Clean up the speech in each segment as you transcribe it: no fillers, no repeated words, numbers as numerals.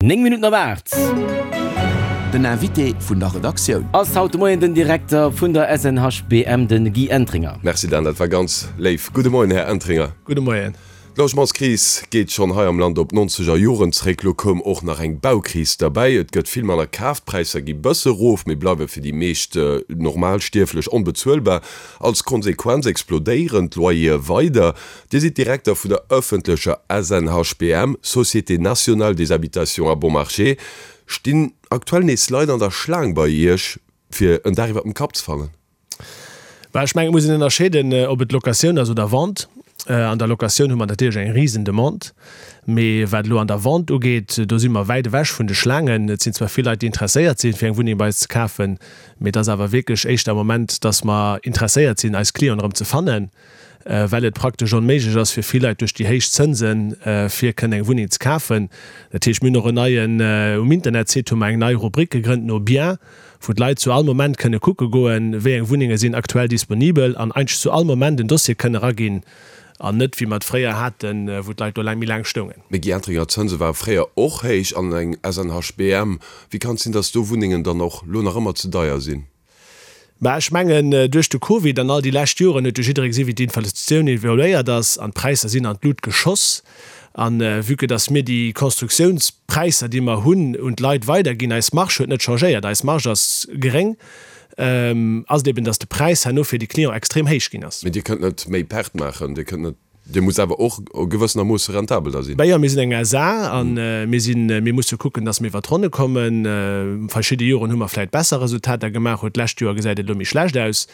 9 Minutten op 8. Den Invité vun der Redaktioun. Ass haut de Moien den Direkter vun der SNHBM, de Guy Entringer. Merci Dan, dat war ganz léif. Gudde Moien, Här Entringer. Gudde Moien. D'Logementskris geet schonn hei am Land op d'nonzeger Joren zréck. Lo koum och nach eng Baukris derbäi. Et gëtt vill manner kaf, d'Präisser gi bësse rof, mee bleiwe fir déi meescht Normalstierflech onbezuelbar. Als Konsequenz explodéieren d'Loyere weider. Dir sidd Direkter vun der ëffentlecher SNHBM, Société Nationale des Habitations à Bon Marché. Stinn aktuell nees Leit an der Schlaang bei Iech, fir en Dag iwwer dem Kapp ze fannen? Bah, ech mengen, et muss een ënnerscheeden, ob et Locatioun ass oder Vente. An der Locatioun hu mer natierlech eng risen Demande, mee wat elo an der Vente ugeet, do si mer wäit ewech vun de Schlaangen. Et sinn zwar vill Leit, déi interesséiert sinn, fir eng Wunneng bei eis ze kafen, mee et ass awer wierklech éischter am Moment, dass mer interesséiert sinn, eis Clienten erëm ze fannen. well et praktesch onméiglech ass fir vill Leit duerch déi héich Zënsen, fir kënnen eng Wunneng ze kafen. Dat heescht, mir hunn och en neien, um Internetsite hu mer eng nei Rubrik gegrënnt no Bien, wou d'Leit zu all Moment kënne kucke goen, wéi eng Wunnenge sinn aktuell disponibel an eigentlech zu all Moment en Dossier kënne eraginn an net wéi mer et fréier haten, wou d'Leit do laang méi laang stoungen. Mee Guy Entringer, d'Zënse ware fréier och héich an eng SNHBM, wéi kann et sinn, datt do Wunnengen dann och lo nach ëmmer ze deier sinn? Mä ech mengen, duerch de Covid an all déi lescht Joren huet jo jidderee gesi wéi d'Inflatioun evoluéiert ass an d'Präisser sinn an d'Lut geschoss. A vue que dass mir déi Constructiounspräisser, déi mer hunn, un d'Leit weiderginn, eis Marge huet net changéiert, eis Marge ass geréng, ass et eben, dass de Präis herno fir de Client extrem héich ginn ass. Mee Dir kënnt net méi Perte maachen, Dir kënnt net Dir musst awer och gewëssenermoosse rentabel da sinn. Ben jo, mir sinn eng SA a mir sinn, mir musse kucken, datt mir iwwer d'Ronne kommen. Verschidde Joren hu mer vläicht besser Resultater gemaach, huet d'lescht Joer gesäit et elo méi schlecht aus.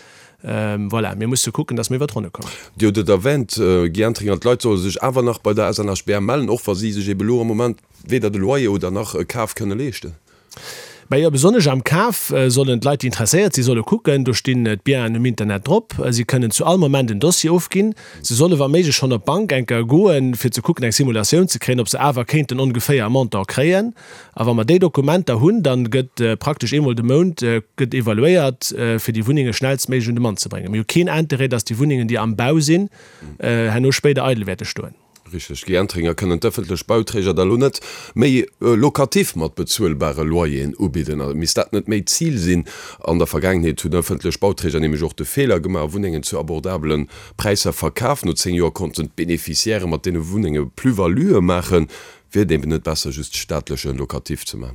Voilà, mir musse kucken, datt mir iwwer d'Ronne kommen. Dir hutt et erwähnt, Guy Entringer, d'Leit solle sech awer nach bei der SNHBM mellen, och wa si sech ebe lo am Moment weder de Loyer oder nach e Kaf kënne leeschten. Mä jo, besonnesch am Kaf sollen d'Leit, déi interesséiert sinn, solle kucken. Do stinn d'Bienen um Internet drop. Si kënnen zu all Moment en Dossier ofginn. Se solle wa méiglech schonn op d'Bank eng Kéier goen, fir ze kucken, eng Simulatioun ze kréien, ob se awer kéinten ongeféier e Montant kréien. A wa mer déi Dokumenter hunn, da gëtt praktesch eemol de Mount gëtt evaluéiert, fir déi Wunnenge schnellstméiglech un de Mann ze bréngen. Mir hu keen Interêt, dass déi Wunnengen, déi am Bau sinn, herno spéider eidel wäerte stoen. Richteg, Guy Entringer, Kënnen d'ëffentlech Bauträger da lo net méi Locatif mat bezuelbare Loyeren ubidden? A misst dat net méi d'Zil sinn? An der Vergaangenheet hunn ëffentlech Bauträger nämlech och de Feeler gemaach a Wunnengen zu abordabele Präisser verkaf. No 10 Joer konnten d'Beneficiairë mat deene Wunnenge Plus-valuë maachen. Wier et eben net besser just staatleche Locatif ze man?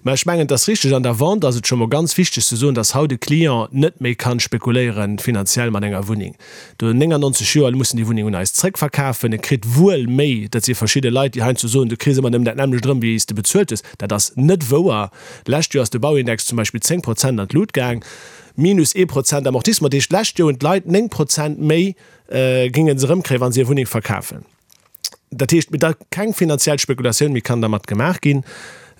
Mä ech mengen, et ass richteg, an der Vente ass et scho mol ganz wichteg ze soen, dass haut e Client net méi kann spekuléieren finanziell mat enger Wunneng. Do 99 Joer muss en déi Wunneng un eis zrëckverkafen. E kritt wuel méi, dat si verschidde Leit, déi heiansdo soen, du kriss ëmmer nëmmen dat nämmlecht erëm, wéi s de bezuelt hues. Dat ass net wouer. D'lescht Joer ass de Bauindex zum Beispill 10 Prozent an d'Lut gaang, minus ee Prozent Amortissement. Dat heescht, d'lescht Joer hunn d'Leit 9 Prozent méi géinge se erëmkréien, wa se hir Wunneng verkafen. Dat heescht, da keng finanziell Spekulatioun méi kann dermat gemaach ginn.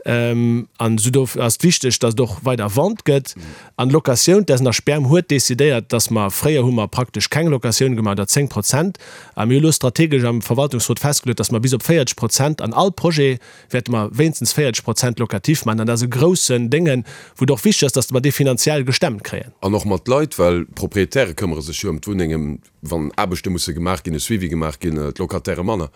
An esou do ass et wichteg, datt et och weider Vente gëtt. An d'Locatioun, d'SNHBM huet decidéiert, datt mer, fréier hu mer praktesch keng Locatioun gemaach, oder 10 Prozent, a mir hu elo strategesch am Verwaltungsrot festgeluet, datt mer bis op 40 Prozent an all Projet wäerte mer wéinstens 40 Prozent Locatif maachen. An dat ass e groussen Déngen, wou et och wichteg ass, datt mer dee finanziell gestemmt kréien. An och mat Leit, well d'Proprietäre këmmere sech jo ëm d'Wunnengen, Wann Aarbechte musse gemaach ginn, e Suivi gemaach ginn, d'Locataire manner.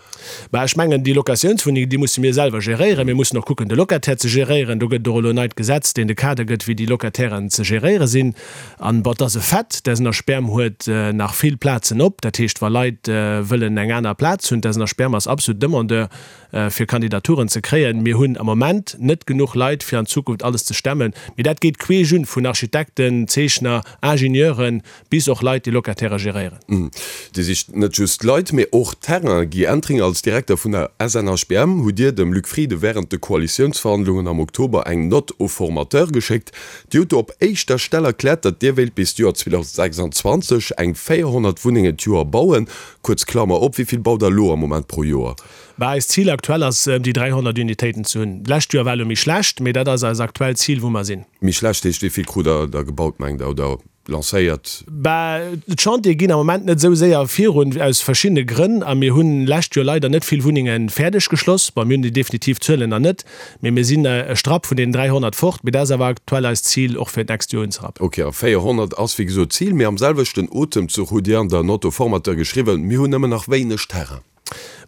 Bah, ech mengen, déi Locatiounswunnengen, déi musse mir selwer geréieren. Mir mussen och kucken, de Locataire ze geréieren. Do gëtt et och elo en neit Gesetz, deen de Kader gëtt, wéi déi Locatairen ze geréiere sinn. An, bon, et ass e Fait, d'SNHBM huet nach vill Plazen op. Dat heescht, wa Leit wëllen eng aner Plaz hunn, d'SNHBM ass absolut Demandeur, fir Kandidaturen ze kréien. Mir hunn am Moment net genuch Leit, fir an Zukunft alles ze stemmen. Mee dat geet queesch un, vun Architekten, Zeechner, Ingenieuren, Bis och Leit, déi Locatairë geréieren. Dir sicht net just Leit, mee och Terrain. Guy Entringer, als Direkter vun der SNHBM hutt Dir dem Luc Frieden wärend de Koalitiounsverhandlungen am Oktober eng Note au formateur geschéckt. Dir hutt do op éischter Stell erkläert, datt Dir wéilt bis d'Joer 2026 eng 400 Wunnengen d'Joer bauen. Kuerz Klammer op, Wéi vill baut Der elo am Moment pro Joer? Bah, eist Zil aktuell ass, ëm déi 300 Unitéiten ze hunn. D'lescht Joer war elo méi schlecht, mee dat ass eist aktuellt Zil, wou mer sinn. Méi schlecht heescht, wéi vill krut Der da gebaut, mengt Der, oder lancéiert? Bah, d'Chantiere ginn am Moment net esou séier virun, aus verschiddene Grënn. A mir hunn lescht Joer leider net vill Wunnenge fäerdeg geschloss. Bon, mir hunn déi definitiv Zuelen nach net, mee mir sinn e Strapp vun deenen 300 fort. Mee dat ass awer aktuell eist Zil, och fir d'nächst Joer unzerappen. Ok, a 400 ass wéi gesot d'Zil. Mee am selwechten Otemzuch hutt Dir an der Note au formateur geschriwwen, Mir hunn nëmmen nach wéineg Terrain.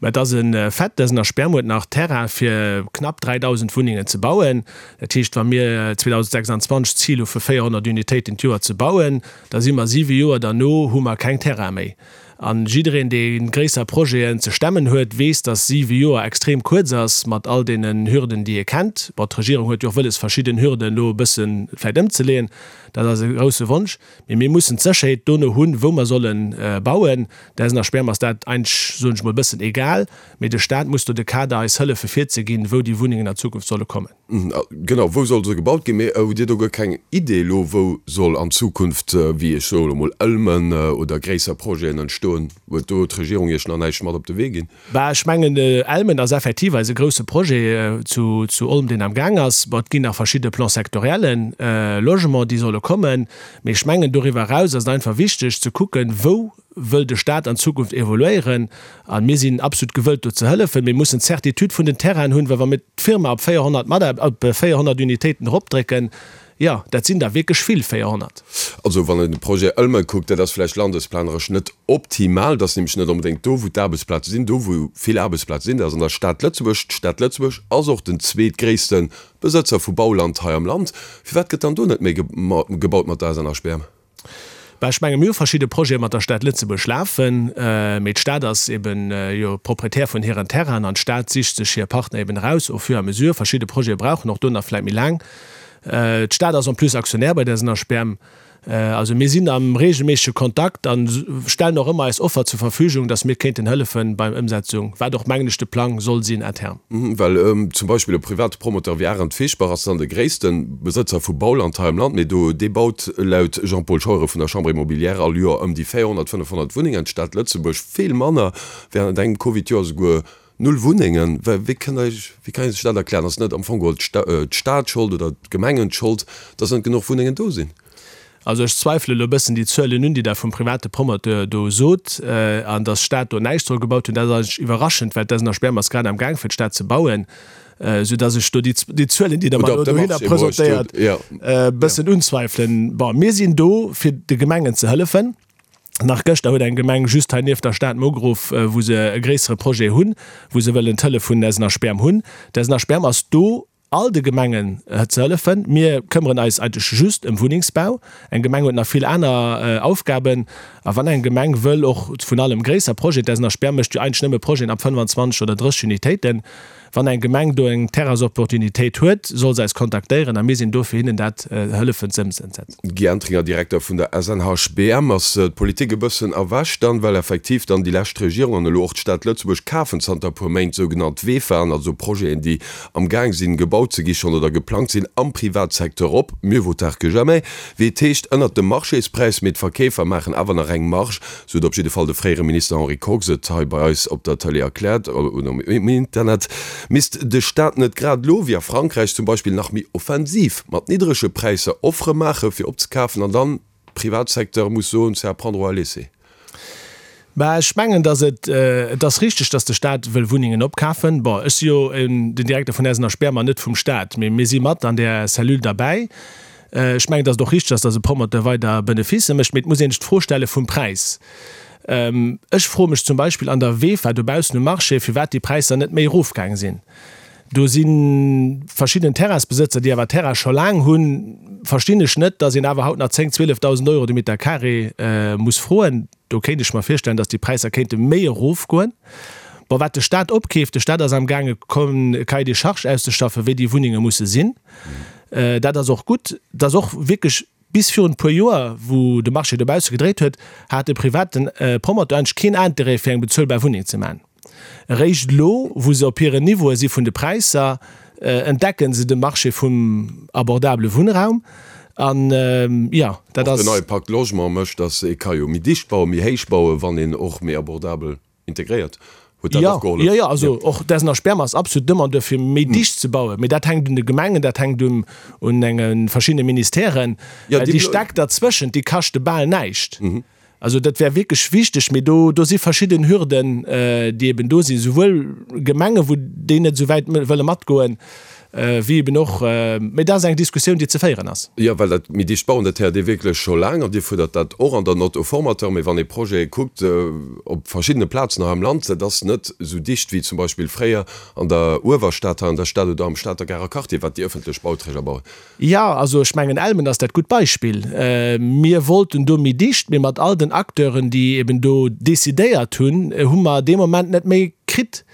Mä et ass e Fait, d'SNHBM huet nach Terrain fir knapp 3.000 Wunnengen ze bauen. Dat heescht, wa mir 2026 d'Zil hu fir 400 Unitéiten d'Joer ze bauen, da si mer siwe Joer derno hu mer keng Terrain méi. A jiddereen, dee gréisser Projeten ze stemmen huet, weess, datt siwe Joer extrem kuerz ass mat all deenen Hürden, déi ee kennt. Bon, d'Regierung huet jo och wëlles, verschidden Hürden elo e bësse vläicht ëmzeleeën. Dat ass e grousse Wonsch. Mee mir mussen d'Sécherheet dono hunn, wou mer solle bauen. Der SNHBM ass dat eigentlech, soen ech mol, e bëssen egal. Mee de Staat muss do de Kader eis hëllefe virzeginn, wou déi Wunnengen an Zukunft solle kommen. Genau, wou soll se gebaut ginn? Mee hutt Dir do guer keng Idee elo, wou soll an Zukunft, wéi ech soe lo mol, Ëlmen oder gréisser Projeten entstoen? Huet do d'Regierung Iech nach näischt mat op de Wee ginn? Bah, ech mengen, Elmen ass effektiv eise grousse Projet zu Olm, deen am Gaang ass. Bon, et ginn nach verschidde Plans sectoriellen Logement, déi solle kommen. Mee ech mengen, doriwwer eraus ass et einfach wichteg ze kucken, wou wëll de Stat an Zukunft evoluéieren. A mir sinn absolut gewëllt, do ze hëllefen. Mir mussen d'Certitude vun den Terrainen hunn, well wa mir d'Firma op 400 Mataar-, op 400 Unitéiten eropdrécken, Jo, dat sinn der wierklech vill, 400. Also wann een de Projet Ëlme kuckt, dat ass vläicht landesplaneresch net optimal. Dat ass nämlech net onbedéngt do, wou d'Aarbechtsplaze sinn. Do, wou vill Aarbechtsplaze sinn, dat ass an der Stad Lëtzebuerg. D'Stad Lëtzebuerg ass och den zweetgréisste Besëtzer vu Bauland hei am Land. Firwat gëtt dann do net méi gebaut mat der SNHBM? Bah, ech menge mir hu verschidde Projete mat der Stad Lëtzebuerg lafen, mee d'Stad ass eben jo Proprietär vun hiren Terrainen an d'Stad sicht sech hir Partner eben eraus au fur et à mesure. Verschidde Projete brauchen och do nach vläit méi laang. D'Stad ass en plus Aktionär bei der SNHBM. Also mir sinn am reegelméissege Kontakt a stellen och ëmmer eis Offer zur Verfügung, dass mir kéinten hëllefen beim Ëmsetzung, wat och mengen ech de Plang soll sinn à terme. Well zum Beispill e private Promoteur wéi Arendt Fischbach ass dann de gréisste Besëtzer vu Bauland hei am Land, mee do dee baut laut Jean-Paul Scheuren vun der Chambre immobilière all Joer ëm déi 400, 500 Wunnengen, d'Stad Lëtzebuerg vill manner, während engem Covid-Joer esouguer null Wunnengen. Wéi kënnt der Iech, wéi kann ee sech dat erklären? Ass net am Fong geholl d'Stad Schold oder d'Gemengen d'Schold, datt net genuch Wunnengen do sinn? Also ech zweifele elo e bëssen déi Zuelen un, déi Der vum private Promoteur do sot, an datt d'Stad do näischt soll gebaut hunn. Dat ass eigentlech iwwerraschend, well d'SNHBM ass grad am Gaang fir d'Stad ze bauen, soudatt ech do déi Zuelen, déi Der mer elo dohinner presentéiert, e bëssen unzweifelen. Bon, mir sinn do fir de Gemengen ze hëllefen. Nach gëschter huet eng Gemeng just hei nieft der Stad mer ugeruff, wou se e gréissere Projet hunn, wou se wëllen d'Hëllef vun SNHBM hunn. D'SNHBM ass do all de Gemengen ze hëllefen. Mir këmmeren eis eigentlech just ëm Wunnengsbau. Eng Gemeng huet nach vill aner Aufgaben. A wann eng Gemeng wëll och vun allem gréisser Projeten, d'SNHBM mécht jo eigentlech nëmme Projeten ab 25 oder 30 Unitéiten, wann eng Gemeng do eng Terrainsopportunitéit huet, soll se eis kontaktéieren a mir sinn do fir hinnen dat hëllefen ze ëmsetzen. Guy Entringer, Direkter vun der SNHBM, Ass d'Politik e bëssen erwächt dann, well effektiv dann déi lescht Regierung an elo och d'Stad Lëtzebuerg kafen zanter e puer Méint sougenannt VEFAen, also Projeten, déi am Gaang sinn gebaut ze gi schonn oder geplangt sinn am Privatsecteur op, mieux vaut tard que jamais, wéi et heescht, ënnert dem Marchéspreis, mee d'Verkeefer maachen awer nach eng Marge, sou huet op jidde Fall de fréiere Minister Henri Kox et hei bei eis op der Tëlee erkläert oder um Internet. Misst de Staat net grad elo, wéi a Frankräich zum Beispill, nach méi offensiv mat niddrege Präisser Offere maache fir opzekafen an dann Privatsecteur muss soen, c'est à prendre ou à laisser. Bah, ech mengen, datt et, et ass richteg, datt de Stat wëll Wunnengen opkafen. Bon, ech si jo den Direkter vun SNHBM an net vum Stat, mee mir si mat an där Cellule derbäi. Ech mengen, datt et och richteg ass, datt e Promoteur weider Beneficë mécht, mee et muss een sech d'Fro stelle vum Präis. Ech froe mech zum Beispill an der VEFA dobaussen um Marché, firwat déi Präisser net méi erofgaang sinn. Do si verschidden Terrainsbesëtzer, déi awer Terrain scho laang hunn, verstinn ech net, datt een awer haut nach 10, 12.000 Euro de Meter carré muss froen. Do kéint ech mer virstellen, datt déi Präisser kéinte méi erofgoen. Bon, wat de Stat opkeeft, de Stat ass amgaange e Cahier des charges auszeschaffen, wéi déi Wunnenge musse sinn. Dat ass och gutt. Et ass och wierklech bis virun e puer Joer, wou de Marché dobausse gedréit huet, hat de private Promoteur eigentlech keen Interêt fir eng bezuelbar Wunneng ze maachen. Eréischt elo, wou se op hiren Niveaue si vun de Präisser, entdecken se de Marché vum abordabele Wunnraum. An, jo, dat ass. Och den neie Pacte Logement mécht, datt ee ka jo méi dicht bauen, méi héich bauen, wann een och méi abordabel integréiert. Huet dat och gehollef? Jo, jo, also och d'SNHBM Sperm ass absolut Demandeur fir méi dicht ze bauen. Mee dat hänkt un de Gemengen, dat hänkt un un enge verschiddene Ministèren. Déi Stäck derzwëschent, déi kaschte bal näischt. Also dat wär wierklech wichteg, mee do, do si verschidden Hürden, déi eben do sinn, souwuel Gemengen, wou déi net esou wäit wëlle matgoen. Wéi eben och, mee dat ass eng Diskussioun, déi ze féieren ass. Jo, well dat méi dicht bauen, dat héiert ee wierklech scho laang an Dir fuerdert dat och an der Note au formateur. Mee wann ee Projete kuckt op verschiddene Plazen hei am Land, dat ass net esou dicht wéi zum Beispill fréier an der Uewerstad, hei an der Stad oder am Stater Garer Quartier, wat déi ëffentlech Bauträger bauen. Jo, also ech mengen Elmen ass dat gutt Beispill. Mir wollten do méi dicht, mee mat all den Acteuren, déi eben do decidéiert hunn, hu mer dee Moment net méi kritt.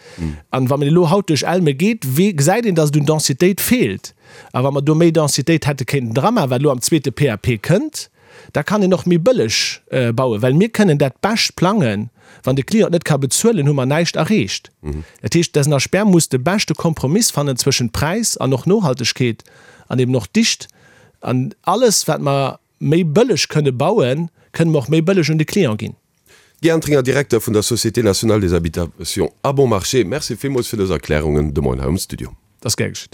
An wa een elo haut duerch Elme geet, gesäit een, datt et un Densitéit feelt. A wa mer do méi Densitéit hätte kéinten dramaachen, wat elo am zweete PAP kënnt, da kann een och méi bëlleg bauen, well mir kënnen dat bescht plangen. Wann de Client net ka bezuelen, hu mer näischt erreecht. Dat heescht, d'SNHBM muss de beschte Kompromiss fannen zwëschent Präis an och Nohaltegkeet an eben och Dicht. An alles, wat mer méi bëlleg kënne bauen, kënne mer och méi bëlleg un de Client ginn. Guy Entringer, Direkter vun der Société nationale des habitations à bon marché, Merci villmools fir dës Erklärungen de Moien hei um Studio. Dat ass gär geschitt.